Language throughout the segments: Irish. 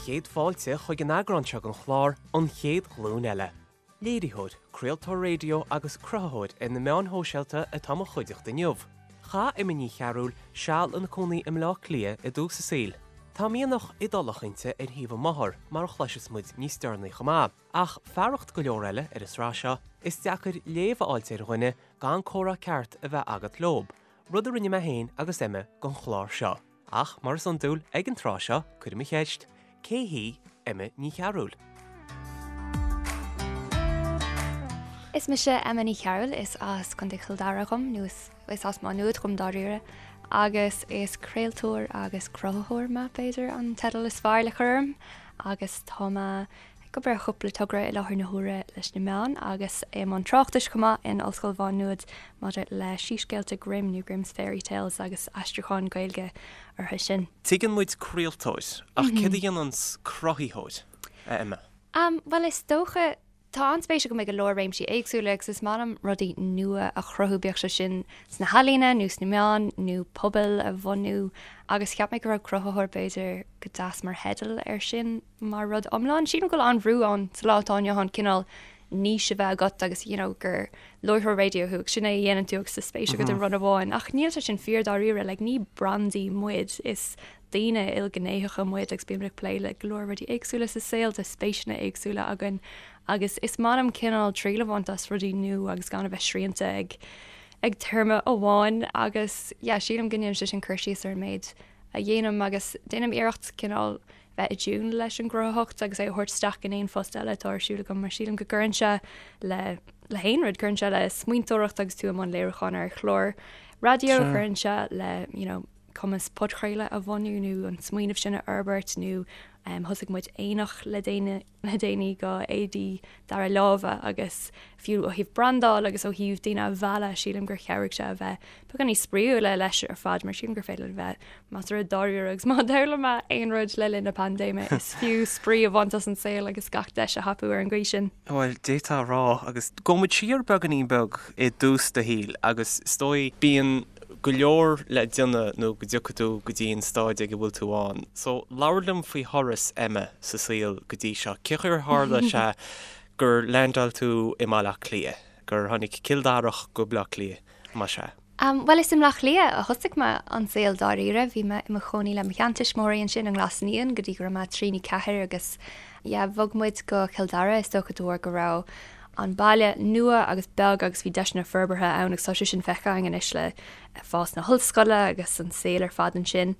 chéad fáilte chuig an eagrán seo den chlár An Chéad Ghlúin Eile. Léiritheoir, craoltóir raidió agus cruthaitheoir ar na meáin shóisialta atá i mo chuideachta inniu. Chaith Emma Ní Chearúil seal ina cónaí i mBleá Cliath i dtús a saoil. Tá mianach Iodálach inti ar thaobh a máthar, mar a chloisfeas muid níos deireanaí chomh maith. Ach fearacht go leor eile ar an sraith seo, is deacair léamh a fháilt ar dhuine gan comhrá ceart a bheith agat leob, rud a rinne mé féin agus Emma don chlár seo. Ach, mar is iondúil ag an tráth seo, cuirim an cheist, cé hí Emma Ní Chearúil? Is mise Emma Ní Chearúil, is as Contae Chill Dara dhom, nó is as Má Nuad dhom dáiríre, agus is craoltóir agus cruthaitheoir mé, b'fhéidir, an teideal is fearr le cur orm, agus tá mé Ag obair ar chúpla togra i láthair na huaire leis na meáin agus i mbun tráchtais chomh maith in Ollscoil Mhá Nuad maidir le Síscéalta Grimm nó Grimm's Fairy Tales agus aistriúchán Gaeilge orthu sin. Tuigeann muid craoltóir, ach céard a dhéananns cruthaitheoir, a Emma? Bhuel, is dócha, tá an-spéis agam i go leor réimsí éagsúla agus is maith liom rudaí nua a chruthú, bíodh sé sin sna healaíona nó sna meáin nó pobail a bhunú agus cheap mé go raibh cruthaitheoir b'fhéidir go deas mar theideal air sin. mar rud iomlán. Sílim go bhfuil an-bhrú ann sa lá atá inniu ann cineál niche a bheith agat agus you know gur láithreoir raidió thú agus sin é a dhéanann tú agus tá spéis agat i rud amháin. Ach níl sé sin fíor dáiríre, like ní brandaí muid, is daoine ilghnéitheacha muid agus bímid ag plé le go leor rudaí éagsúla sa saol, tá spéiseanna éagsúla againn agus is maith liom cineál triail a bhaint as rudaí nua agus gan a bheith srianta ag ag téarma amháin agus yeah sílim go ndéanann sé sin cur síos ar an méid a dhéanaim agus déanaim iarracht cineál bheith i dtiúin leis an gcruthaitheacht agus é a thabhairt isteach in aon phost eile atá ar siúl agam mar sílim go gcuireann sé le le haon rud, cuireann sé le smaointeoireacht agus tú i mbun léiriúcháin ar chlár raidió, cuireann sé le you know, cumas podchraoladh a bhunú nó an smaoineamh sin a fhorbairt nó um, thosaigh muid aonach le déine le déanaí go éadaí dara láimhe agus fiú ó thaobh brandáil agus ó thaobh daoine a mhealladh, sílim gur chabhraigh sé a bheith beagán níos spraíúla leis ar fad mar sílim gur féidir linn bheith measartha dáiríre agus má d'fhoghlaim mé aon rud le linn na paindéime is fiú spraoi a bhaint as an saol agus gach deis a thapú ar an gcaoi sin. Bhuel, d'fhéadfá a rá agus gabhfaidh muid siar beagáinín beag i dtús do shaoil agus is dóigh bíonn go leor le déanamh nó go dtiocfaidh tú go dtí an stáid ag a bhfuil tú ann. So, labhair liom faoi thuras Emma sa saol go dtí seo. Cén chaoi ar tharla sé gur leaindeáil tú i mBaile Átha Cliath, gur tháinig Cill Darach go Baile Átha Cliath, más ea? Bhuel, is i mBleá Cliath a thosaigh mé an saol dáiríre. Bhí mé i mo chónaí le mo sheantuismitheoirí ansin i nGlas Naíon go dtí go raibh mé trí nó ceathair agus yeah, bhog muid go Cill Dara is dócha de bharr go raibh an baile nua agus beag agus bhí deiseanna forbartha ann agus tá sé sin feicthe againn anois le fás na hollscoile agus an saol ar fad ansin.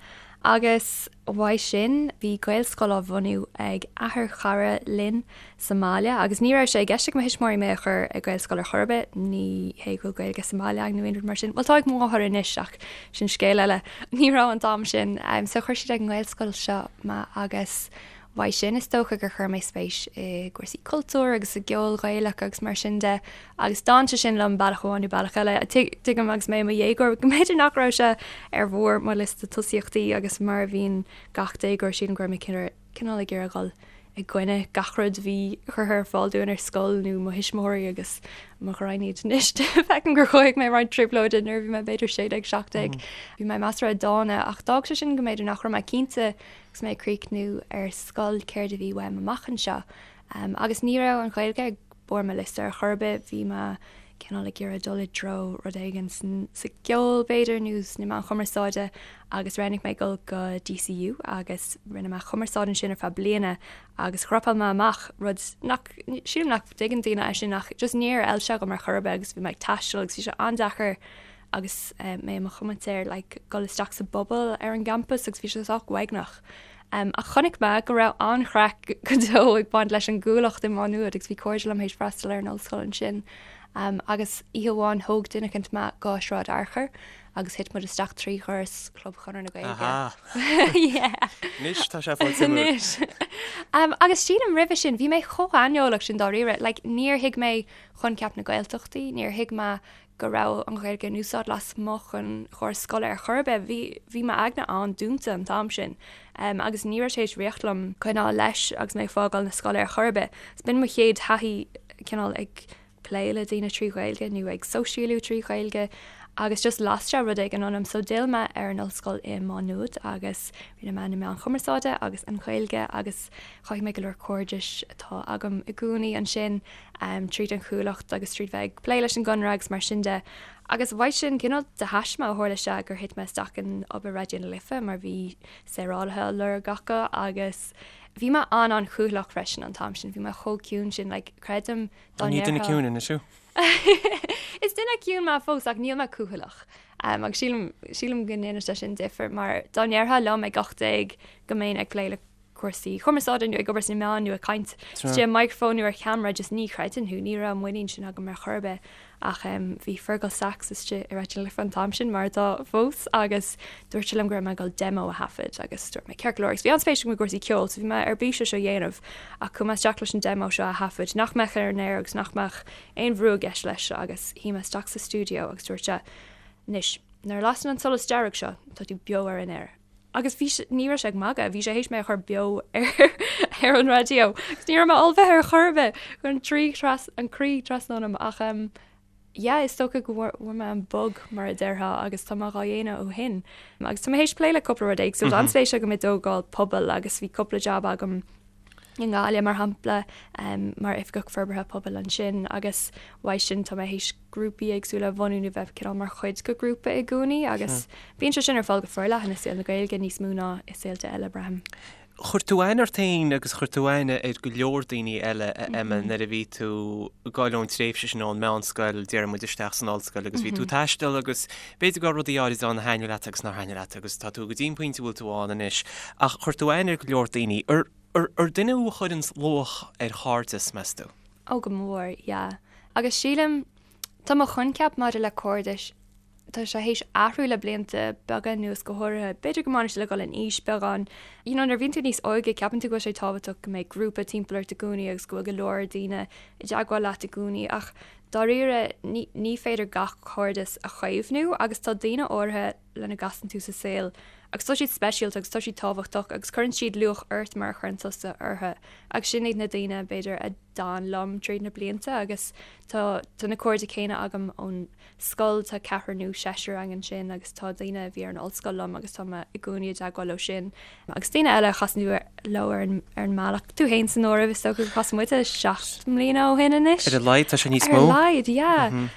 Agus uaidh sin bhí Gaelscoil á bhunú ag athair chara linn sa mbaile agus ní raibh sé i gceist ag mo thuismitheoirí mé a chur ag Gaelscoil ar chor ar bith, ní hé go bhfuil Gaeilge sa mbaile againn nó aon rud mar sin, bhuel tá ag mo mháthair anois ach sin scéal eile, ní raibh an t-am sin. So chuir siad ag an nGaelscoil seo mé agus Uaidh sin, is dócha gur chuir mé spéis i gcúrsaí cultúir agus i gceol Gaelach agus mar sin de agus d'fhan sé sin liom bealach amháin nó bealach eile. Tuigim agus mé i mo dhéagóir go mb'fhéidir nach raibh sé ar bharr mo liosta tosaíochtaí agus mar a bhíonn gach déagóir sílim go raibh mé cineál ag iarraidh dhul i gcoinne gach rud a bhí curtha ar fáil dúinn ar scoil nó mo thuismitheoirí agus mo ghraidhin iad anois. Feicim gur chothaigh mé roinnt trioblóide nuair a bhí mé b'fhéidir 16, 17. Bhí mé measartha dána ach d'fhág sé sin go mb'fhéidir nach raibh mé cinnte Agus mé ag críochnú ar scoil céard a bhí uaim amach anseo. Agus ní raibh an Ghaeilge ag barr mo liosta ar chor ar bith, bhí mé cineál ag iarraidh dul i dtreo rud éigin sa gceol b'fhéidir nó sna meáin chumarsáide agus roghnaigh mé dul go DCU agus rinne mé cumarsáid ansin ar feadh bliana agus dhropáil mé amach, rud nach, sílim nach dtuigeann daoine é sin ach just níor fheil sé dhom ar chor ar bith agus bhí mé ag taisteal agus bhí sé an-deacair agus mé i mo chomaitéir like dul isteach sa bpobal ar an gcampas agus bhí sé sách uaigneach. Um, ach chonaic mé go raibh an-chraic go deo ag baint leis an gCuallacht i Má Nuad agus bhí cairde liom théis freastal ar an ollscoil ansin. Um, agus oíche amháin thóg duine eicint mé go Sráid Fhearchair agus thit muid isteach trí dhoras Chlub Chonradh na Gaeilge. Yeah. Anois tá sé fáil Anois. Um, agus sílim roimhe sin, bhí mé chomh haineolach sin dáiríre, like, níor thuig mé coincheap na Gaeltachtaí, níor thuig mé go raibh an Ghaeilge in úsáid lasmuigh den chóras scoile ar chor ar bith. Bhí, bhí m'aigne an-dúnta an t-am sin agus ní raibh sé tar éis rith liom coinneáil leis agus mé ag fágáil na scoile ar chor ar bith. So b'in mo chéad thaithí cineál ag plé le daoine trí Ghaeilge nó ag sóisialú trí Ghaeilge. Agus just las sé rud éigin ionam so d'fhill mé ar an ollscoil i Má Nuad agus rinne mé na Meáin Chumarsáide agus an Ghaeilge agus chothaigh mé go leor cairdis atá agam i gcónaí ansin tríd an Chuallacht agus tríd bheith ag plé leis an gConradh agus mar sin de. Agus uaidh sin cineál de thaisme a tharla sé gur thit mé isteach in obair Raidió na Life mar bhí saorálaithe á lorg acu agus bhí mé an-an-chúthaileach freisin an t-am sin, bhí mé chomh ciúin sin like creidim dá ndéarfá. Ní duine ciúin anois thú? Is duine ciúin mé fós ach níl mé cúthaileach. Agus sílim, sílim go ndéanann sé sin difear mar dá ndéarfá liom ag 18 go mbeinn ag plé le cúrsaí cumarsáide nó ag obair sna meáin nó ag caint istigh i microphone nó ar cheamara just ní chreidfinn thú, ní raibh an muinín sin agam ar chor ar bith. Ach bhí Fergal Sachs istigh i Raidió na Life an t-am sin, mar atá fós, agus dúirt sé liom go raibh mé ag dul demo a thaifead agus dúirt mé ceart go leor agus bhí an-spéis agam i gcúrsaí ceoil so bhí mé ar bís é seo a dhéanamh ach chuaigh mé isteach leis an demo seo a thaifead nach mbeadh ar an aer agus nach mbeadh aon bhrú i gceist leis agus shuigh mé isteach sa stiúideo agus dúirt sé anois nuair a lasann an solas dearg seo tá tú beo ar an aer. Agus bhí sé, ní raibh sé ag magadh, bhí sé théis mé a chur beo ar ar an raidió. Agus ní raibh mé ullmhaithe ar chor ar bith, chuir an trí tras, an croí trasna ionam ach em yeah is dócha go bhfuair bhfuair mé an bug mar a déarfá agus tá mé dhá dhéanamh ó shin. Agus tá mé théis plé le cúpla rud éagsúil, tá an-spéis agam i dtógáil pobail agus bhí cúpla jab agam i nGaillimh mar shampla mar Oifigeach Forbartha Pobail ansin agus uaidh sin tá mé théis grúpaí éagsúla a bhunú nó bheith cineál mar chuid de ghrúpa i gcónaí agus bíonn sé sin ar fáil go forleathan i saol na Gaeilge níos mó ná i saolta eile, braithim. Chuir tú aithne ort féin agus chuir tú aithne ar go leor daoine eile, a Emma, nuair a bhí tú ag gabháil ón tréimhse sin ón meánscoil, déarfaidh muid, isteach san ollscoil agus bhí tú ag taisteal agus b'fhéidir go raibh rudaí áirid ann a thaitnigh leat agus nár thaitnigh leat agus tá tú go dtí an pointe a bhfuil tú ann anois ach chuir tú aithne ar go leor daoine. Ar duine thú a chuireanns luach ar chairdeas, meas tú? Ó go mór, yeah. Agus sílim, tá mo choincheap maidir le cairdis, tá sé théis athrú le blianta beaga anuas go háirithe. B'fhéidir go mbaineann sé le dhul in aois beagán. You know, nuair a bhíonn tú níos óige, ceapann tú go bhfuil sé tábhachtach go mbeidh grúpa timpeall ort i gcónaí agus go bhfuil go leor daoine i dteagmháil leat i gcónaí ach dáiríre ní, ní féidir gach cairdeas a chaomhnú agus tá daoine áirithe lena gcasann tú sa saol agus tá siad speisialta agus tá siad tábhachtach agus cuireann siad luach ort mar a chuireann tusa orthu agus sin iad na daoine b'fhéidir a d'fhan liom tríd na blianta agus tá tá na cairde céanna agam ón scoil, tá ceathrar nó seisear againn ansin agus tá daoine a bhí ar an ollscoil liom agus tá mé i gcónaí i dteagmháil leo sin agus daoine eile a chasann tú leo ar an ar an mbealach, tú féin san áireamh is dócha gur chas muid 7 mbliana ó shin anois. Ar a laghad, tá sé níos mó. Ar a laghad, yeah.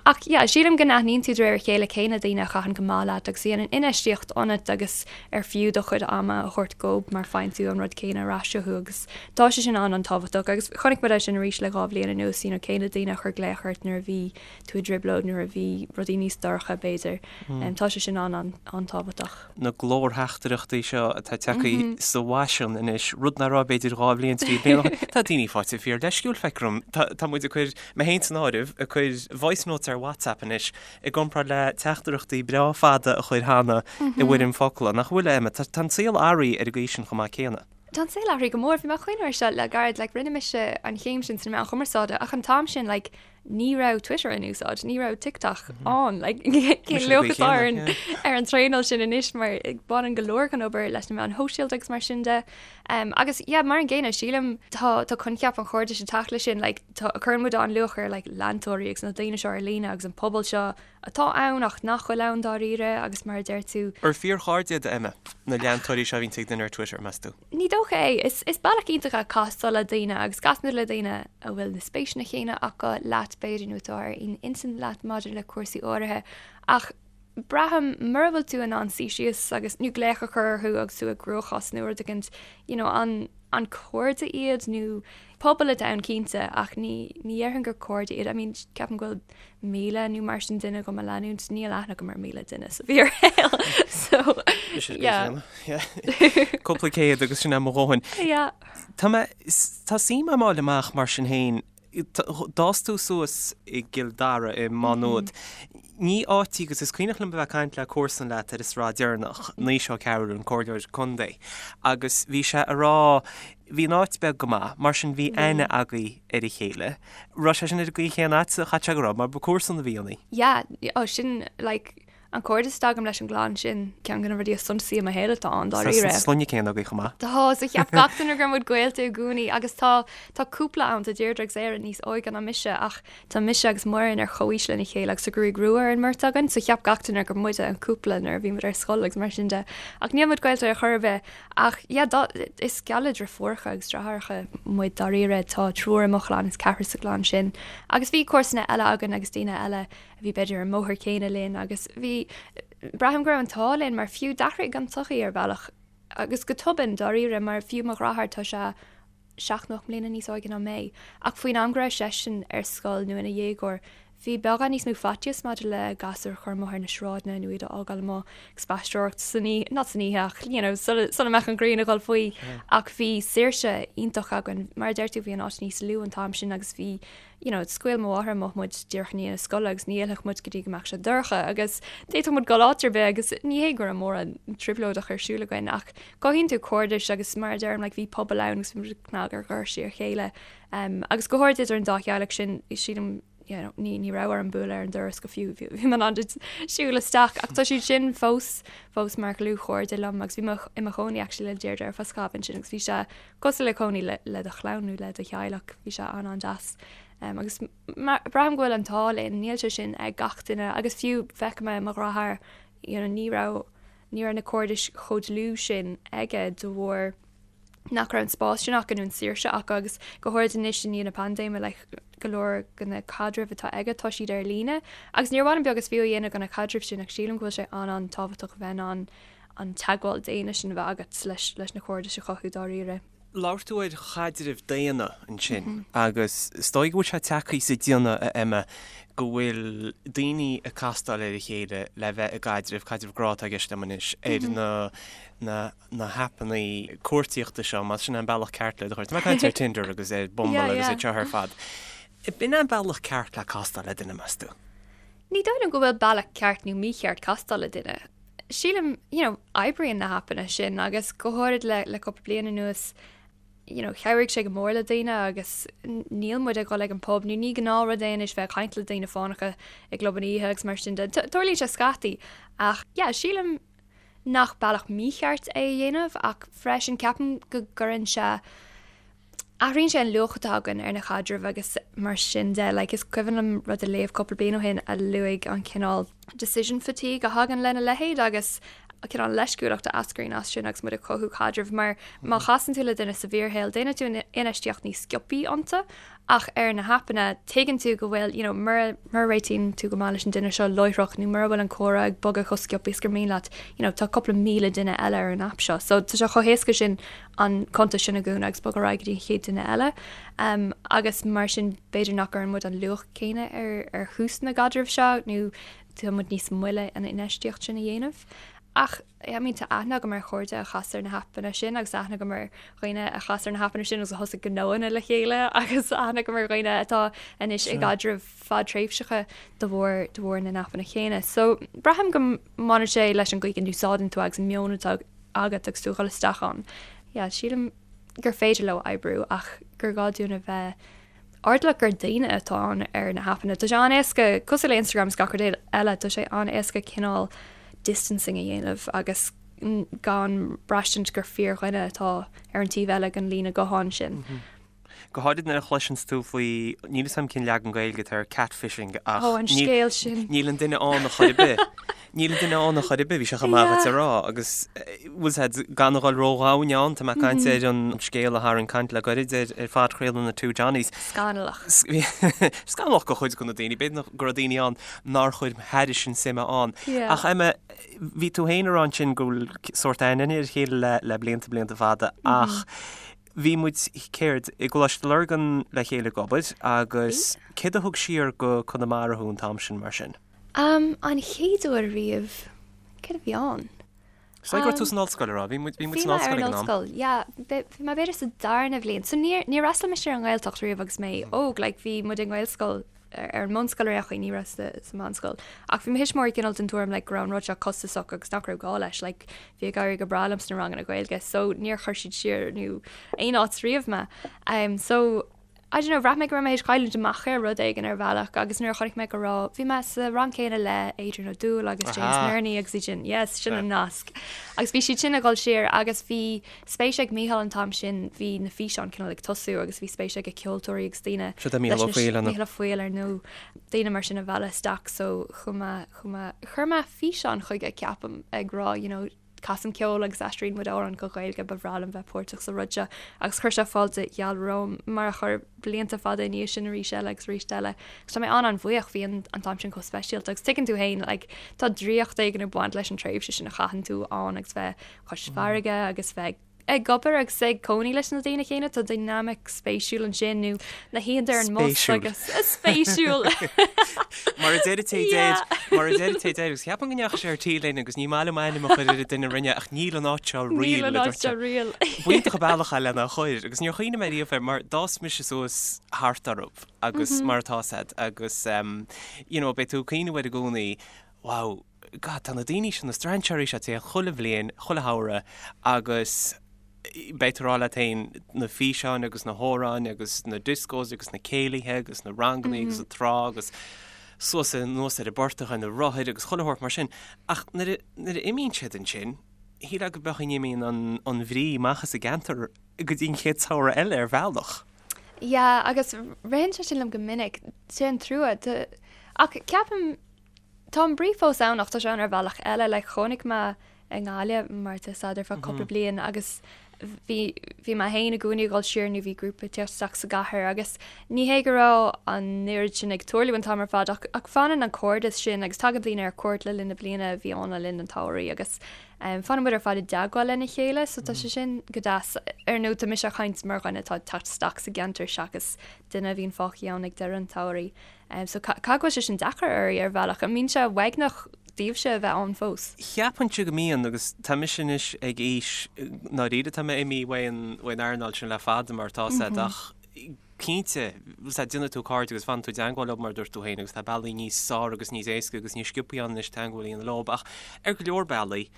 Ach yeah, sílim go n-aithníonn tú de réir a chéile cé na daoine a chaitheann go maith leat agus a dhéanann infheistíocht ionat agus ar fiú do chuid ama a thabhairt dóibh mar faigheann tú an rud céanna ar ais uathu agus tá sé sin an-an-tábhachtach agus chonaic muid é sin arís le 2 bhliain anuas, you know, cé na daoine a chuir glaoch ort nuair a bhí tú i dtrioblóid, nuair a bhí rudaí níos dorcha b'fhéidir. Tá sé sin an-an-tábhachtach. na glórtheachtaireachtaí seo atá tagtha sa bhfaisean anois, rud nach raibh b'fhéidir 2 bhliain, 3 bliana ó shin. Tá daoine faighte fíor leisciúil, feictear dom. Tá muid ag cur, mé féin san áireamh, ag cur voice notes ar WhatsApp anois i gcomparáid le teachtaireachtaí breá fada a chur cheana i bhfoirm focla, nach bhfuil, a Emma? Tá an saol athraithe ar an gcaoi sin chomh maith céanna. Tá an saol athraithe go mór. Bhí mé ag cuimhneamh air seo le gairid, like rinne mise an chéim sin sna meáin chumarsáide ach an t-am sin like ní raibh Twitter in úsáid, ní raibh TikTok ann, like cén luach atá ar an ar an traenáil sin anois mar baineann go leor den obair leis na meáin shóisialta agus mar sin de. Um, agus yeah, mar an gcéanna sílim tá tá coincheap an chairdis ag teacht leis sin, like, tá cuireann muid an-luach ar like, leantóirí agus na daoine seo ar líne agus an pobal seo atá ann ach nach bhfuil ann dáiríre agus mar a deir tú. Ar fíorchairde iad, Emma, na leantóirí seo a bhíonn ag duine ar Twitter, meas tú? Ní dócha é. Is is bealach iontach é castáil le daoine agus casann tú le daoine a bhfuil na spéiseanna céanna acu leat b'fhéidir nó atá ar aon intinn leat maidir le cúrsaí áirithe ach braithim mura bhfuil tú in ann suí síos agus nó glaoch a chur orthu agus tú i gcruachás nó rud éicint you know an an cairde iad nó pobal atá ann cinnte ach ní ní dhéarfainn gur cairde iad. I mean ceapaim go bhfuil 1,000 nó mar sin duine agam a leanúint, níl aithne agam ar 1,000 duine sa bhfíorshaol so yeah. Cúpla céad agus sin é mo dhóthain. Yeah. Tá mé, tá suim agam a fháil amach mar sin féin, d'fhás tú suas i gCill Dara i Má Nuad. Ní áit í agus is cuimhneach liom a bheith ag caint le comharsan leat ar an sraith deireanach, Naoise Ó Cearúil, an comhairleoir contae, agus bhí sé a rá, bhí an áit beag go maith, mar sin bhí aithne agaibh ar a chéile. Raibh sé sin ar an gcaoi chéanna agatsa? Chaithfeadh sé go raibh, mar ba comharsan a bhí ionaibh. Yeah, oh sin like. An cairdeas atá agam leis an gclann sin, ceann de na rudaí is suntasaí i mo shaol atá ann, dáiríre. Tá sloinne céanna agaibh chomh maith. Tá, so cheap gach duine go raibh muid gaolta i gcónaí agus tá, tá cúpla ann, tá Deirdre agus Éire níos óige ná mise ach tá mise agus Muireann ar chomhaois lena chéile agus tá gruaig rua ar an mbeirt againn so cheap gach duine gur muide an cúpla nuair a bhí muid ar scoil agus mar sin de. Ach níl muid gaolta ar chor ar bith ach yeah, dá, is geall le deirfiúracha agus deartháireacha muid dáiríre, tá triúr i mo chlann is ceathrar sa gclann sin agus bhí comharsana eile againn agus daoine eile a bhí b'fhéidir ar an mbóthar céanna linn agus bhí, braithim go raibh an t-ádh linn mar fiú d'athraigh an tsochaí ar bhealach agus go tobann dáiríre mar fiú mo dheartháir tá sé 7 nó 8 mbliana níos óige ná mé ach faoin am go raibh seisean ar scoil nó ina dhéagóir bhí beagán níos mó faitíos maidir le gasúir a chur amuigh ar na sráideanna nó iad a fhágáil amuigh ag spaisteoireacht san oíche, not san oíche ach you know sula, sula mbeadh an ghrian ag dul faoi ach bhí saoirse iontach againn mar a deir tú bhí an áit níos lú an t-am sin agus bhí you know, scaoil mo mháthair amach muid díreach i ndiaidh na scoile agus ní fhillfeadh muid go dtí go mbeadh sé dorcha agus d'fhéadfadh muid dul áit ar bith agus ní hé go raibh mórán trioblóideach ar siúl againn ach cothaíonn tú cairdis agus mar a deirim like, bhí pobal ann agus bhí muid ag cnag ar dhoirsí a chéile um, agus go háirid idir an dá theaghlach sin sílim you know, ní, ní raibh orm bualadh ar an doras go fiú bhí mé in ann siúl isteach ach tá siad sin fós fós mar dhlúthchairde liom agus bhí mé i mo chónaí actually le Deirdre ar feadh scaithimh ansin agus bhí sé Cosúil le cónaí le do chlann nó le do theaghlach, bhí sé an-an-deas. Agus braithim go bhfuil an t-ádh linn, níl sé sin ag gach duine agus fiú feicim é i mo dheartháir, you know, ní raibh, ní raibh na cairdis chomh dlúth sin aige de bharr nach raibh an spás sin acu nó an saoirse acu agus go háirid anois i ndiaidh na paindéime like go leor de na caidrimh atá aige tá siad ar líne agus níor mhaith liom beag is fiú a dhéanamh de na caidrimh sin ach sílim go bhfuil sé an-an-tábhachtach a bheith in ann an teagmháil daonna sin a bheith agat leis leis na cairdis a chothú dáiríre. Labhair tú ar chaidrimh daonna ansin agus is dóigh go bhfuil sé tagtha sa déanamh, a Emma, go bhfuil daoine ag castáil ar a chéile le bheith i gcaidreamh, caidreamh grá atá i gceist liom anois, ar na na na haipeanna cuartaíochta seo, más sin an bealach ceart le do chur. Tá mé ag caint ar Tinder agus ar Bumble agus iad seo ar fad. B'in an bealach ceart le castáil le duine, meas tú? Ní dóigh liom go bhfuil bealach ceart nó mícheart castáil le duine. Sílim, you know, oibríonn na haipeanna sin agus go háirid le le cúpla bliain anuas, you know, chabhraigh sé go mór le daoine agus níl muid ag dul ag an pub nó ní gnáthrud é anois bheith ag caint le daoine fánacha i gclubanna oíche agus mar sin de. Tarlaíonn sé scaití ach yeah, sílim nach bealach mícheart é a dhéanamh ach freisin ceapaim go gcuireann sé Athraíonn sé an luach atá againn ar na caidrimh agus mar sin de. Like, is cuimhin liom rud a léamh cúpla bliain ó shin a luaigh an cineál decision fatigue a thagann lena leithéid agus an cineál leisciúlacht a eascraíonn as sin agus muid ag cothú caidrimh mar má chasann tú le duine sa bhfíorshaol déanann tú infheistíocht níos sciobthaí iontu ach ar na haipeanna tuigeann tú go bhfuil you know, mura mura réitíonn tú go maith leis an duine seo láithreach nó mura bhfuil an comhrá ag bogadh chomh sciobtha is gur mian leat you know, tá cúpla míle duine eile ar an aip seo so tá sé chomh héasca sin an cuntas sin a dhúnadh agus bogadh ar aghaidh go dtí an chéad duine eile. Agus mar sin b'fhéidir nach gcuireann muid an luach céanna ar ar thús na gcaidreamh seo nó tá muid níos moille an infheistíocht sin a dhéanamh. Ach I mean tá aithne agam ar chairde a chas ar na haipeanna sin agus aithne agam ar dhaoine a chas ar na haipeanna sin agus a thosaigh gnóanna le chéile agus aithne agam ar dhaoine atá anois i gcaidrimh fadtréimhseacha de bharr de bharr na n-aipeanna céanna. So braithim go mbaineann sé leis an gcaoi go n-úsáideann tú agus an meon atá agat agus tú ag dul isteach ann. Yeah, sílim gur féidir leo oibriú ach gur gá dúinn a bheith airdeallach gur daoine atá ann ar na haipeanna. Tá sé an-éasca, cosúil le Instagram is gach rud eile, tá sé an-éasca cineál distancing a dhéanamh agus gan braistint gur fíordhuine atá ar an taobh eile den líne gutháin sin. Go háirid nuair a chloiseanns tú faoi, níl 'fhios a'm cén leagan Gaeilge atá ar catfishing ach Ó, an scéal sin. níl an duine ann a chor ar bith. Níl an duine ann a chor ar bith, bhí sé chomh maith dhuit a rá agus bhfuil 's a'd, gan a dhul ródhomhain ann, tá mé ag caint ar an scéal a tharraing caint le goirid ar ar phodchraoladh na Two Johnnies. Scannalach. Scannalach do chuid de na daoine, b'fhéidir go raibh daoine ann nár chuir thairis an suime ann. Ach Emma, bhí tú féin ag rá ansin go bhfuil sórt aithne ar a chéile le le blianta blianta fada ach Bhí muid, céard, i gColáiste Lurgan le chéile ag obair agus céard a thug siar go Conamara thú an t-am sin mar sin? Am, an chéad uair riamh, céard a bhí ann? Is dóigh go raibh tú san ollscoil, an raibh? Bhí muid, bhí muid san ollscoil ag an am. Bhí mé ar an ollscoil, yeah. Bhí mé b'fhéidir sa darna bhliain. So níor, níor fhreastail mise ar an nGaeltacht riamh agus mé óg, like bhí muid i nGaelscoil ar an mbunscoil ar aon chaoi, ní raibh sa mheánscoil. Ach bhí mo thuismitheoirí cineál den tuairim like go raibh an rud seo costasach agus nach raibh gá leis, like bhí ag éirí go breá liom sna ranganna Gaeilge so níor chuir siad siar nó aon áit riamh mé. Um, so. I don't know, bhraith mé go raibh mé théis cailliúint amach ar rud éigin ar bhealach agus nuair a chonaic mé go raibh, bhí mé sa rang céanna le Adrian Ó Dúill agus James Nerney agus iad sin, yes, sin an nasc. Agus bhí siad sin ag dul siar agus bhí spéis ag Mícheál an t-am sin, bhí na físeáin cineál ag tosú agus bhí spéis aige ceoltóirí agus daoine Seo é Mícheál Ó Foighil, an ea? Mícheál Ó Foighil ar ndóigh, daoine mar sin a mhealladh isteach so chuaigh mé, chuaigh mé, chuir mé físeán chuige ceapaim ag rá you know, Casaim ceol agus aistríonn muid amhráin go Gaeilge, ba bhreá liom bheith páirteach sa rud seo agus chuir sé fáilte gheal romham, mar a chuir blianta fada ina dhiaidh sin arís eile agus arís eile. Agus tá mé an-an-bhuíoch, bhí an an t-am sin chomh speisialta agus tuigeann tú féin like tá draíocht éigin ag baint leis an tréimhse sin a chaitheann tú ann agus bheith cois farraige agus bheith ag obair agus ag cónaí leis na daoine céanna, tá dynamic spéisiúil ansin nó na hoícheanta ar an mbus agus spéisiúil. Mar a deir té deir, mar a deir té deir, agus cheapaim go ndeachaigh sé ar tí linn agus ní maith liom ainm a chur ar an duine a rinne ach níl an áit seo real. Níl an áit seo real. B'iontach an bealach é lena chur agus níor chuimhnigh mé riamh air mar d'fhás mise suas thart orthu agus mar atá said agus you know beidh tú ag cuimhneamh air i gcónaí, wow, God, tá na daoine seo, na strainséirí seo ag tíocht chuile bhliain, chuile shamhradh agus beidh tú ag rá leat féin na físeáin agus na hamhráin agus na discos agus na céilithe agus na ranganna agus an trá agus suas anuas ar an bportach ar na rothair agus chuile shórt mar sin. Ach nuair a, nuair a imíonn siad ansin, shílfeá go beadh an imíonn an, an bhrí amach as an gceantar go dtí an chéad samhradh eile ar bhealach. Yeah, agus ritheann sé sin liom go minic, sé an trua. Ach ceapaim, Tá an brí fós ann ach tá sé ann ar bhealach eile. Like chónaigh mé i nGaillimh mar tá 'fhios a'd ar feadh cúpla bliain agus bhí bhí mé féin i gcónaí ag dul siar nó bhí grúpa ag teacht isteach sa gcathair agus ní hé go raibh an oiread sin ag tarlú an t-am ar fad ach ach fanann an cairdeas sin agus tagann daoine ar cuairt le linn na bliana a bhí ann le linn an tsamhraidh agus um, fanann muid ar fad i dteagmháil lena chéile so tá sé sin go deas. Ar ndóigh tá mise ag caint mar dhuine atá ag teacht isteach sa gceantar seachas duine a bhíonn fágtha ann ag deireadh an tsamhraidh. So caithfidh go bhfuil sé sin deacair oraibh ar bhealach. An mbíonn sé uaigneach daoibhse a bheith ann fós? Cheapfainnse go mbíonn, agus tá mise anois ag aois, ndáiríre tá mé imithe uaidh an earnáil sin le fada mar atá said ach cinnte, déanann tú cairde agus fanann tú i dteangmháil leo mar a dúirt tú féin agus tá bealaí níos fearr agus níos éasca agus níos sciobthaí ann anois teangmháil a dhéanamh leo ach ar go leor bealaí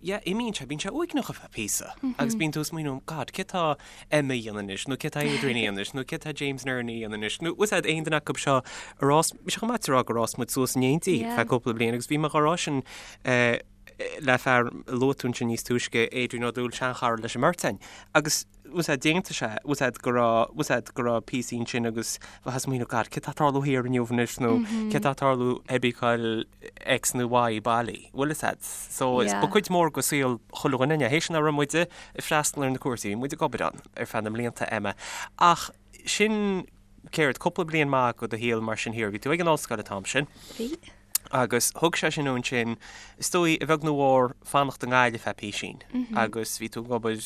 yeah, imíonn sé, bíonn sé uaigneach ar feadh píosa agus bíonn tú ag smaoineamh, God, céard tá Emma a dhéanamh anois, nó céard tá Adrian a dhéanamh anois, nó céard tá James Nerney a dhéanamh anois, nó bhfuil 'fhios a'd aon duine acu seo ar fhás, bhí sé chomh maith a rá gur fhás muid suas in éindí feadh cúpla bliain agus bhí mé dhá rá sin le fear a luaigh tú ansin níos túisce, Adrian Ó Dúill, seanchara leis an mbeirt againn, agus bhfuil 'fhios a'd, d'aontaigh sé, bhfuil 'fhios a'd go raibh, bhfuil 'fhios a'd go raibh píosaí ansin agus bheifeá ag smaoineamh, God, céard tá ag tarlú thiar inniu anois nó céard tá ag tarlú ag cá X nó Y baile, bhfuil 'fhios a'd. So is ba cuid mhór de saol chuile dhuine againne, théis nach raibh muide ag freastal ar na cúrsaí, bhí muid ag obair ann ar feadh na mblianta, Emma. Ach sin, céard, cúpla bliain maith de do shaol mar sin thiar, bhí tú ag an ollscoil an t-am sin. Bhí. Agus thug sé sin ansin, is dóigh, a bheag nó a mhór, fanacht i nGaillimh feadh písín. Agus bhí tú ag obair,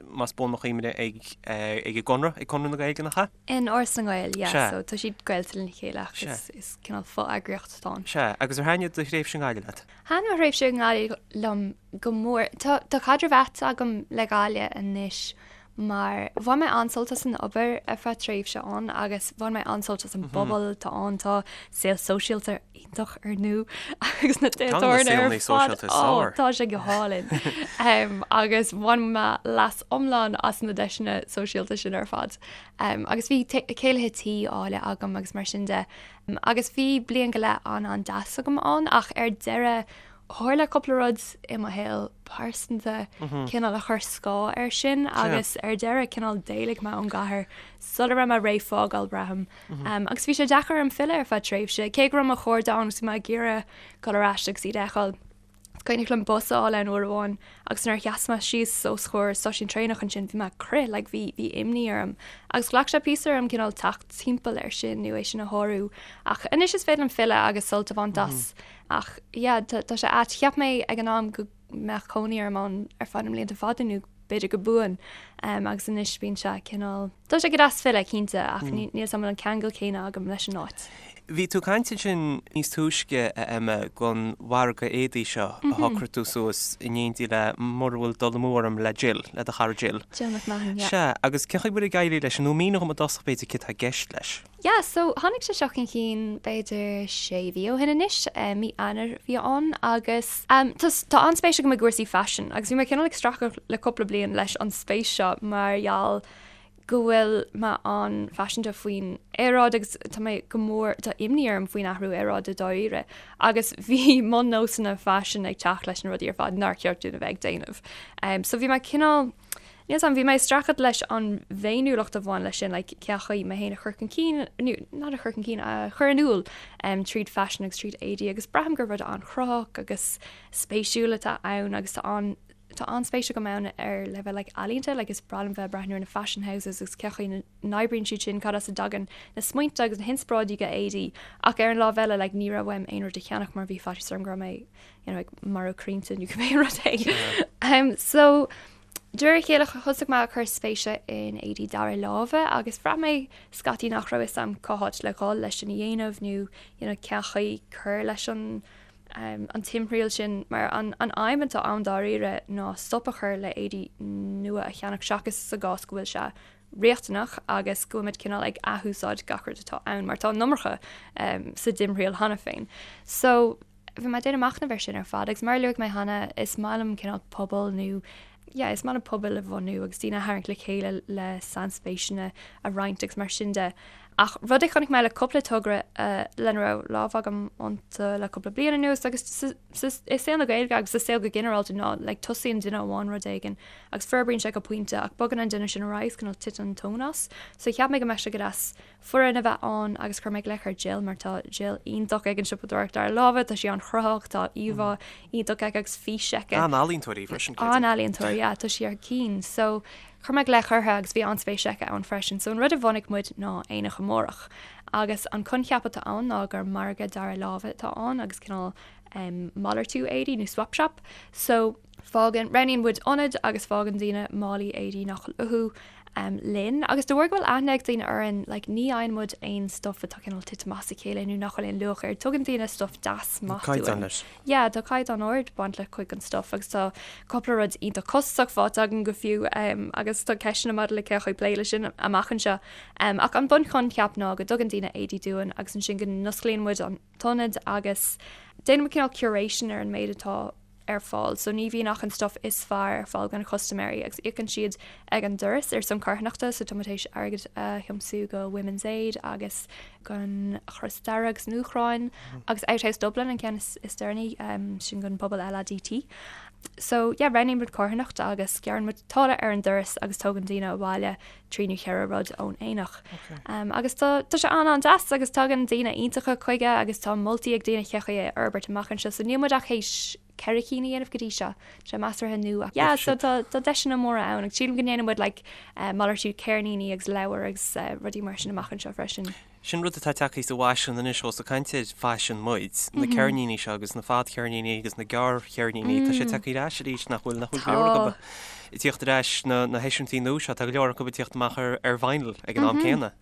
más buan mo chuimhne, ag ag an gConradh, ag Conradh na Gaeilge, nach ea? In Áras na nGael, yeah. Sea. So tá siad gaolta lena chéile ach is is cineál fo-eagraíocht atá ann. Sea. Agus ar thaitnigh do thréimhse i nGaillimh leat? Thaitin mo thréimhse i nGaillimh liom go mór. Tá tá caidreamh ait agam le Gaillimh anois mar bhain mé an-sult as an obair ar feadh tréimhse ann agus bhain mé an-sult as an bpobal atá ann. Tá saol sóisialta iontach ar ndóigh agus na tithe tábhairne ar fad. Ó, tá sé go hálainn. Agus bhain mé leas iomlán as na deiseanna sóisialta sin ar fad. Agus bhí céilithe tí áille agam agus mar sin de. Agus bhí bliain go leith an-an-deas agam ann ach ar deireadh Tharla cúpla rud i mo shaol pearsanta cineál a chuir scáth air sin agus ar deireadh cineál d'éalaigh mé ón gcathair sula raibh mé réidh fágáil, braithim. Agus bhí sé deacair orm filleadh ar feadh tréimhse, cé go raibh mo chairde ann agus bhí mé ag iarraidh dul ar ais agus iad a fheiceáil. Is cuimhneach liom bus a fháil ann uair amháin agus nuair a sheas mé síos os comhair stáisiún traenach ansin bhí mé ag crith, like bhí bhí imní orm. Agus ghlac sé píosa orm cineál teacht timpeall air sin nó é sin a shárú. Ach anois is féidir liom filleadh agus sult a bhaint as. Ach yeah, tá sé ait. Cheap mé ag an am go mbeadh cónaí orm ann ar feadh na mblianta fada nó b'fhéidir go buan. Um, agus anois bíonn sé cineál... Tá sé go deas filleadh, cinnte, ach mm. níl 'fhios a'm an bhfuil an ceangal céanna agam leis an áit. Bhí tú ag caint ansin níos túisce, a Emma, gon mhargadh éadaí seo a mhm. shocraigh tú suas in éindí le mura bhfuil dul amú orm le Jill, le do chara Jill. Jill McMahon, yeah. Sea, agus cén chaoi bhfuil ag éirí leis, nó mínigh dom i dtosach b'fhéidir céard tá i gceist leis. Yeah, so tháinig sé seo chun cinn b'fhéidir sé mhí ó shin anois, mí Eanáir a bhí ann agus tá tá an-spéis agam i gcúrsaí faisin agus bhí mé cineál ag streachailt le cúpla bliain leis an spéis seo mar gheall go bhfuil mé an-phaiseanta faoin aeráid agus tá mé go mór, tá imní orm faoin athrú aeráide dáiríre agus bhí mo nósanna faisin ag teacht leis na rudaí ar fad nár cheart dúinn a bheith ag déanamh. Um, so bhí mé cineál, níl 's a'm, bhí mé ag streachailt leis an bhféiniúlacht a bhain leis sin, like, cén chaoi mé féin a chur chun cinn, nó not a chur chun cinn, a chur in iúl um, tríd faisean agus tríd éadaí agus braithim gur rud an-chruthaitheach agus spéisiúil atá ann agus tá an Tá an-spéis agam ann ar leibhéal like ealaíonta, like is breá liom bheith ag breathnú ar na fashion houses agus cén chaoi a n-oibríonn siad sin, cad as a dtagann na smaointe agus na hinspioráidí do éadaí ach ar an lámh eile like ní raibh uaim aon rud a cheannach mar bhí faitíos orm go raibh mé you know ag marú crainnte nó cibé rud é. Um, so de réir a chéile thosaigh mé ag cur spéise in éadaí dara láimhe agus bhraith mé scaití nach raibh fhios a'm cá háit le dhul leis sin a dhéanamh nó you know cén chaoi cur leis an an timthriall sin, mar an aidhm atá ann dáiríre ná stop a chur le éadaí nua a cheannach seachas sa gcás go bhfuil sé riachtanach agus go bhfuil muid cineál ag athúsáid gach rud atá ann mar tá an iomarca sa dtimthriall cheana féin. So bhí mé ag déanamh machnaimh air sin ar fad agus mar a luaigh mé cheana is maith liom cineál pobal nó yeah, is maith liom pobail a bhunú agus daoine a tharraingt le chéile le sainspéiseanna a roinnt agus mar sin de. Ach rud a chonaic mé le cúpla togra lena raibh lámh agam iontu le cúpla bliain anuas agus i saol na Gaeilge agus sa saol go ginearálta ná like tosaíonn duine amháin rud éigin agus forbraíonn sé go pointe ach bogann an duine sin ar aghaidh is cineál titeann an tóin as. So cheap mé go mbeadh sé go deas foireann a bheith ann agus chuir mé glaoch ar Jill mar tá Jill iontach ag an siopadóireacht dara láimhe, tá sí an-chruthaitheach, tá íomhá iontach aici agus fís aici. An-ealaíontóir í freisin, creidim. An-ealaíontóir, yeah, tá sí ar cinn. So chuir mé glaoch uirthi agus bhí an-spéis aici ann freisin. So an rud a bhunaigh muid ná Aonach Amárach. Agus an coincheap atá ann ná gur margadh dara láimhe atá ann agus cineál um, malartú éadaí nó swap shop. So Fágann, roghnaíonn muid ionad agus fágann daoine málaí éadaí nach bhfuil uathu linn. Agus de bharr go bhfuil aithne ag daoine orainn, like, ní fhaigheann muid aon stuff atá cineál tite amach as a chéile nó nach bhfuil aon luach air. Tugann daoine stuff deas maith dúinn. Caighdeán leis. Yeah, tá caighdeán ard baint le cuid den stuff agus tá cúpla rud iontach costasach faighte againn go fiú agus tá ceisteanna maidir le cén chaoi plé leis sin amach anseo. Ach an bunchoincheap ná go dtugann daoine éadaí dúinn agus ansin go n-osclaíonn muid an t-ionad agus déanann muid cineál curation ar an méid atá ar fáil so ní bhíonn ach an stuff is fearr ar fáil do na custaiméirí agus íocann siad ag an doras ar son carthanachta so tá muid théis airgead a thiomsú go Women's Aid agus don Chros Dearg san Úcráin agus Outhouse Dublin an ceann is, is deireanaí um, sin don pobal LADT. So yeah, roghnaíonn muid carthanacht agus gearrann muid táille ar an doras agus tógann daoine abhaile 3 nó 4 rud ón aonach. Agus tá tá sé an-an-deas agus tagann daoine iontacha chuige agus tá moltaí ag daoine cén chaoi é a fhorbairt amach anseo so níl muid ach théis 4 cinn a dhéanamh go dtí seo. Tá sé measartha nua. Yeah, so tá tá deiseanna móra ann agus sílim go ndéanann muid like malartú ceirníní agus leabhar agus rudaí mar sin amach anseo freisin. Sin rud atá tagtha sa bhfaisean anois ós ag caint ar faisean muid, na ceirníní seo agus na fadcheirníní agus na gearrcheirníní, tá sé tagtha ar ais arís nach bhfuil, nach bhfuil go leor acu ag tíocht ar ais na na heisiúintí nua seo, tá go leor acu ag tíocht amach ar ar vinyl ag an am céanna.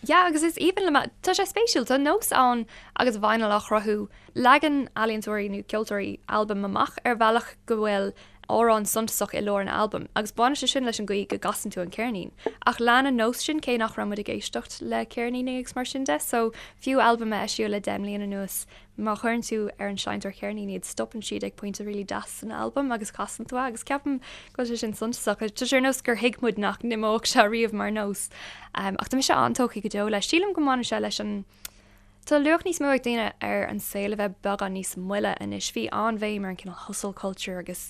Yeah, agus is aoibhinn liom, tá sé spéisiúil, tá nós ann agus vinyl á chruthú, leagann ealaíontóirí nó ceoltóirí albam amach ar bhealach go bhfuil amhrán suntasach i lár an albaim, agus baineann sé sin leis an gcaoi go gcasann tú an ceirnín. Ach lean an nós sin cé nach raibh muid ag éisteacht le ceirníní agus mar sin de, so fiú albaim a eisíodh le 10 mbliana anuas, má chuireann tú ar an seinnteoir ceirnín iad, stopann siad ag pointe really deas san albam agus casann tú é, agus ceapaim go bhfuil sé sin suntasach. Tá sé ar nós gur thuig muid nach n-imeodh sé riamh mar nós. Ach tá mise an-tógtha go deo leis. Sílim go mbaineann sé leis an. Tá luach níos mó ag daoine ar an saol a bheith beagán níos moille anois. Bhí an-bhéim ar an cineál hustle culture agus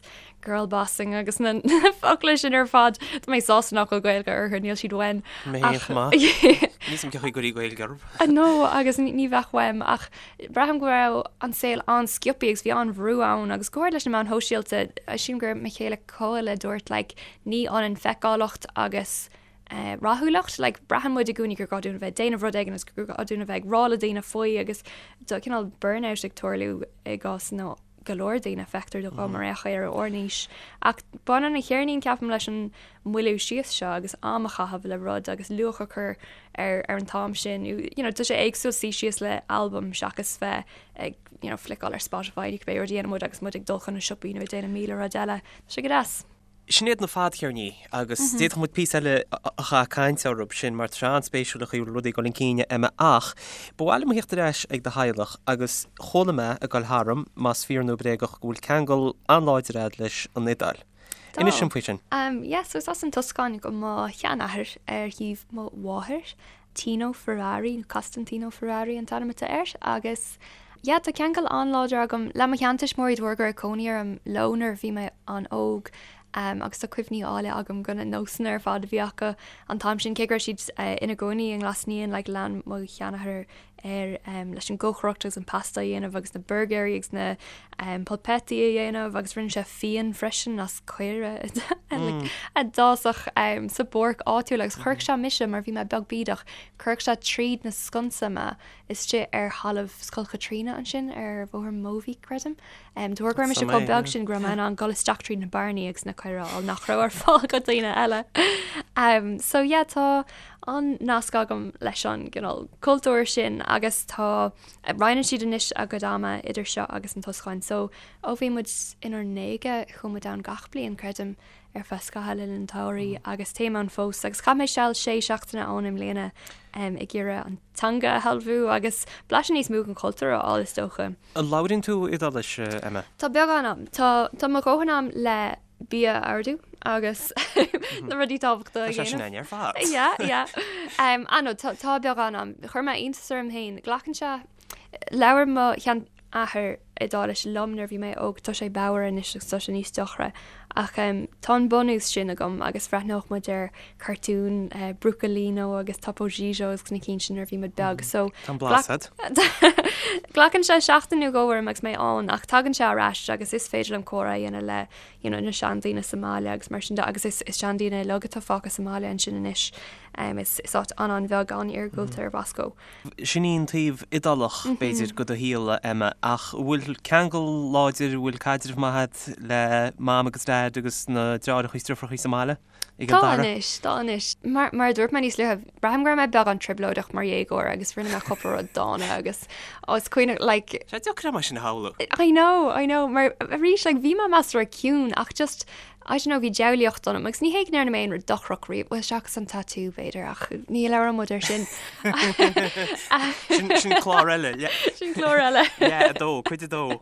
girl bossing agus na focla sin ar fad. Tá mé sásta nach bhfuil Gaeilge orthu, níl siad uaim. Mé féin chomh maith. Níl 'fhios a'm cén chaoi go gcuirfí Gaeilge orthu. No, agus ní bheadh uaim ach braithim go raibh an saol an-sciobtha agus bhí an-bhrú ann agus go háirid leis na meáin shóisialta, sílim gur mo chéile Cóil a dúirt like ní ionann feiceálacht agus rathúlacht, like braitheann muid i gcónaí gur gá dúinn a bheith ag déanamh rud éigin agus gur gá dúinn a bheith ag rá le daoine faoi agus tá cineál burnout ag tarlú i gcás na go leor daoine, feictear dom ar aon chaoi ar ár n-aois. Ach baineann an cheirnín ceapaim leis an moilliú síos seo agus am a chaitheamh le rud agus luach a chur ar ar an t-am sin. You know, tá sé éagsúil suí síos le albam seachas bheith ag you know, fliceáil ar Spotify nó cibé rud a dhéanann muid agus muid ag dul chun na siopaí nó ag déanamh 1000 rud eile. Tá sé go deas. Sin iad na fadcheirníní agus d'fhéadfadh muid píosa eile a chaitheamh ag caint orthu sin mar tá sé an-spéisiúil an chaoi a bhfuil rudaí ag dul chun cinn, Emma ach ba mhaith liom a theacht ar ais ag do theaghlach agus chuala mé ag dul tharam, más fíor nó bréagach, go bhfuil ceangal an-láidir agat leis an Iodáil. Inis dom faoi sin. Yeah, so is as an Tuscáin do mo sheanathair ar thaobh mo mháthair, Tino Ferrari, nó Costantino Ferrari an t-ainm atá air, agus yeah, tá ceangal an-láidir agam le mo sheantuismitheoirí de bharr go raibh cónaí orm leo nuair a bhí mé an-óg agus tá cuimhní áille agam de na nósanna ar fad a bhí acu an t-am sin, cé go raibh siad ina gcónaí i nGlas Naíon, like lean mo sheanathair air leis an gcócaireacht agus an pasta a dhéanamh agus na burgéirí agus na polpetti a dhéanamh agus rinne sé fíon freisin as caora a d'fhásfadh sa bpáirc áitiúil agus chuirfeadh sé mise mar bhí mé beag bídeach, chuirfeadh sé tríd na sconsa mé istigh ar thalamh Scoil Chaitríona ansin ar Bhóthar Mobhí, creidim. De bharr go raibh mise chomh beag sin go raibh mé in ann dul isteach tríd na bearnaí agus na caora a fháil nach raibh ar fáil do dhaoine eile. So yeah, tá an-nasc agam leis an gcineál cultúr sin agus tá, roinneann siad anois a gcuid ama idir seo agus an Tuscáin. So ó bhí muid inár ndéaga chuaigh muid ann gach bliain, creidim, ar feadh scaitheamh le linn an tsamhraidh agus téim ann fós agus chaith mé seal sé seachtaine ann i mbliana ag iarraidh an teanga a shealbhú agus blaiseadh níos mó den chultúr a fháil is dócha. An labhraíonn tú Iodáilis, Emma? Tá beagán a'm. Tá tá mo dhóthain a'm le bia a ordú agus na rudaí tábhachtacha a Tá sé sin dhéanamh. againn ar fad. Yeah, yeah. Um, ah no, tá tá beagán a'm. Chuir mé iontas orm féin. Glacann sé Labhair mo sheanathair Iodáilis liom nuair a bhí mé óg, tá sé bodhar anois agus tá sé níos deacra ach tá an bunús sin agam agus bhreathnódh muid ar cartúin Brucolino agus Topo Gigio agus na cinn sin nuair a bhí muid beag so Tá an blas agat. Glacann sé seachtain nó dhó orm agus mé ann ach tagann sé ar ais agus is féidir liom comhrá a dhéanamh le you know na seandaoine sa mbaile agus mar sin de agus is is seandaoine uilig atá fágtha sa mbaile ansin anois. Is is áit an-an-bheag an-iargúlta ar Bhosco. Sin í an taobh Iodálach, b'fhéidir, de do shaol, a Emma, ach an bhfuil ceangal láidir, an bhfuil caidreamh maith agat le Mam agus Daid agus na deartháireacha is deirfiúracha sa mbaile i gCill Dara? Tá anois, tá anois. Mar, mar a dúirt mé níos luaithe, braithim go raibh mé beagán trioblóideach mar dhéagóir agus rinne mé cúpla rud dána agus ó, is cuimhneach, like. Sé deacair é mar sin a shamhlú. I know, I know, mar arís, like, bhí mé measartha ciúin ach just, I don't know, bhí diabhlaíocht ionam agus ní hé go ndearna mé aon rud dochrach riamh, bhuel seachas an tatú b'fhéidir ach ní labhróidh muid air sin. Sin, sin clár eile. Sin clár eile. Yeah, 2, cuid 2.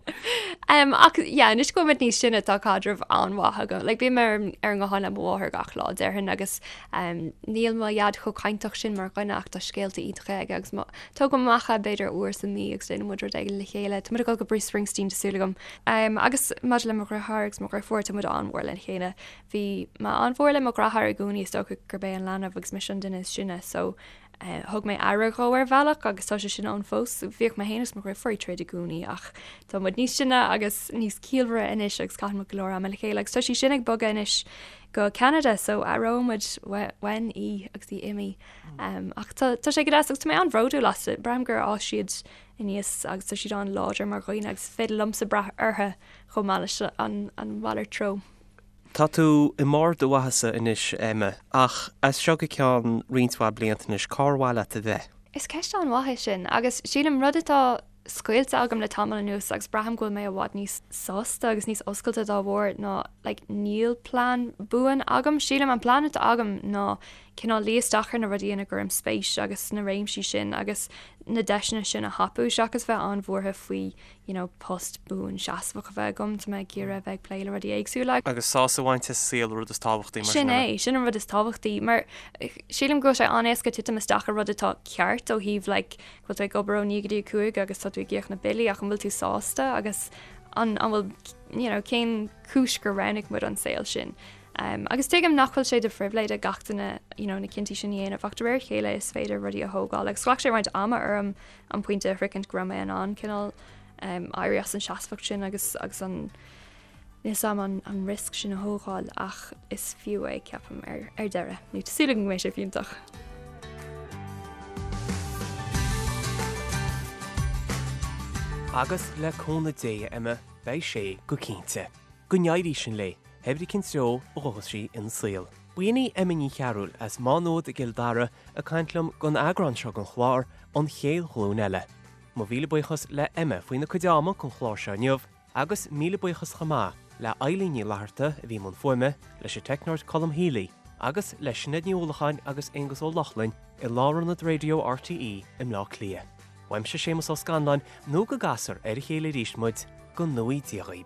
Um, ach yeah, anois go bhfuil muid níos sine tá caidreamh an-mhaith agam. Like, bím ar, ar an nguthán le mo mháthair gach lá déarfainn agus um, níl mo dhaid chomh cainteach sin mar dhuine ach tá scéalta iontacha aige agus mo, tógaim amach é b'fhéidir uair sa mí agus déanann muid rud éigin le chéile. Tá muid ag dul go Bruce Springsteen tá súil agam. Agus maidir le mo dheartháir agus mo dheirfiúr, tá muid an-mhór lena chéile. Bhí mé an-mhór le mo dheartháir i gcónaí, is dócha gurb é an leanbh agus mise an duine is sine so thug mé aire dhó ar bhealach agus tá sé sin ann fós. Bhíodh mé féin agus mo dheirfiúr ag troid i gcónaí ach tá muid níos sine agus níos ciallmhaire anois agus caitheann muid go leor ama le chéile agus tá sí sin ag bogadh anois go Ceanada so aireoidh muid uainn í agus í imithe. Ach tá sé go deas agus tá mé an-bhródúil astu. Braithim gur fhás siad aníos agus tá siad an-láidir mar dhaoine agus is féidir liomsa brath orthu chomh maith leis an mhalairt treo. Tá tú i mbarr do mhaitheasa anois, Emma, ach as seo go ceann roinnt mhaith blianta anois, cár mhaith leat a bheith? Is ceist an-mhaith é sin agus sílim rud atá scaoilte agam le tamall anuas agus braithim go bhfuil mé i bhfad níos sásta agus níos oscailte dá bharr ná like níl plean buan agam. Sílim an plean atá agam ná cineál luí isteach ar na rudaí ina gcuirim spéis agus sna réimsí sin agus na deiseanna sin a thapú seachas bheith an-bhuartha faoi you know post buan seasmhach a bheith agam, tá mé ag iarraidh a bheith ag plé le rudaí éagsúla. Agus sásamh a bhaint as an saol an rud is tábhachtaí mar sin. Sin é, sin an rud is tábhachtaí mar sílim go bhfuil sé an-éasca titim isteach i rud atá ceart ó thaobh like go bhfuil tú ag obair ó 9 go dtí 5 agus tá tú ag íoc na billí ach an bhfuil tú sásta agus an an bhfuil you know cén chúis gur roghnaigh muid an saol sin. Agus tuigim nach bhfuil sé de phribhléid ag gach duine you know na cinntí sin a dhéanamh ach de réir a chéile is féidir rudaí a thógáil agus ghlac sé roinnt ama orm an pointe a shroichint go raibh mé in ann cineál éirí as an seasmhacht sin agus agus an níl 's a'm an an risk sin a thógáil ach is fiú é ceapaim ar ar deireadh nó tá súil agam go mbeidh sé fiúntach. Agus le cúnamh Dé, a Emma, beidh sé go cinnte. Go n-éirí sin léi. Pé brí cén treo a ghabhfas sí ina saol. B'in í Emma Ní Chearúil as Má Nuad i gCill Dara ag caint liom don eagrán seo den chlár, An Chéad Ghlúin Eile. Mo mhíle buíochas le Emma faoina cuid ama don chlár seo inniu agus míle buíochas chomh maith le Eilín Ní Fhlatharta a bhí i mbun fuaime, leis an teicneoir Colm Healy agus le Sinéad Ní Uallacháin agus Aonghus Ó Lochlainn i Lárionad Raidió RTÉ i mBleá Cliath. Uaimse Séamus Ó Scanláin nó go gcasfar ar a chéile arís muid, go ngnóthaí Dia dhaoib.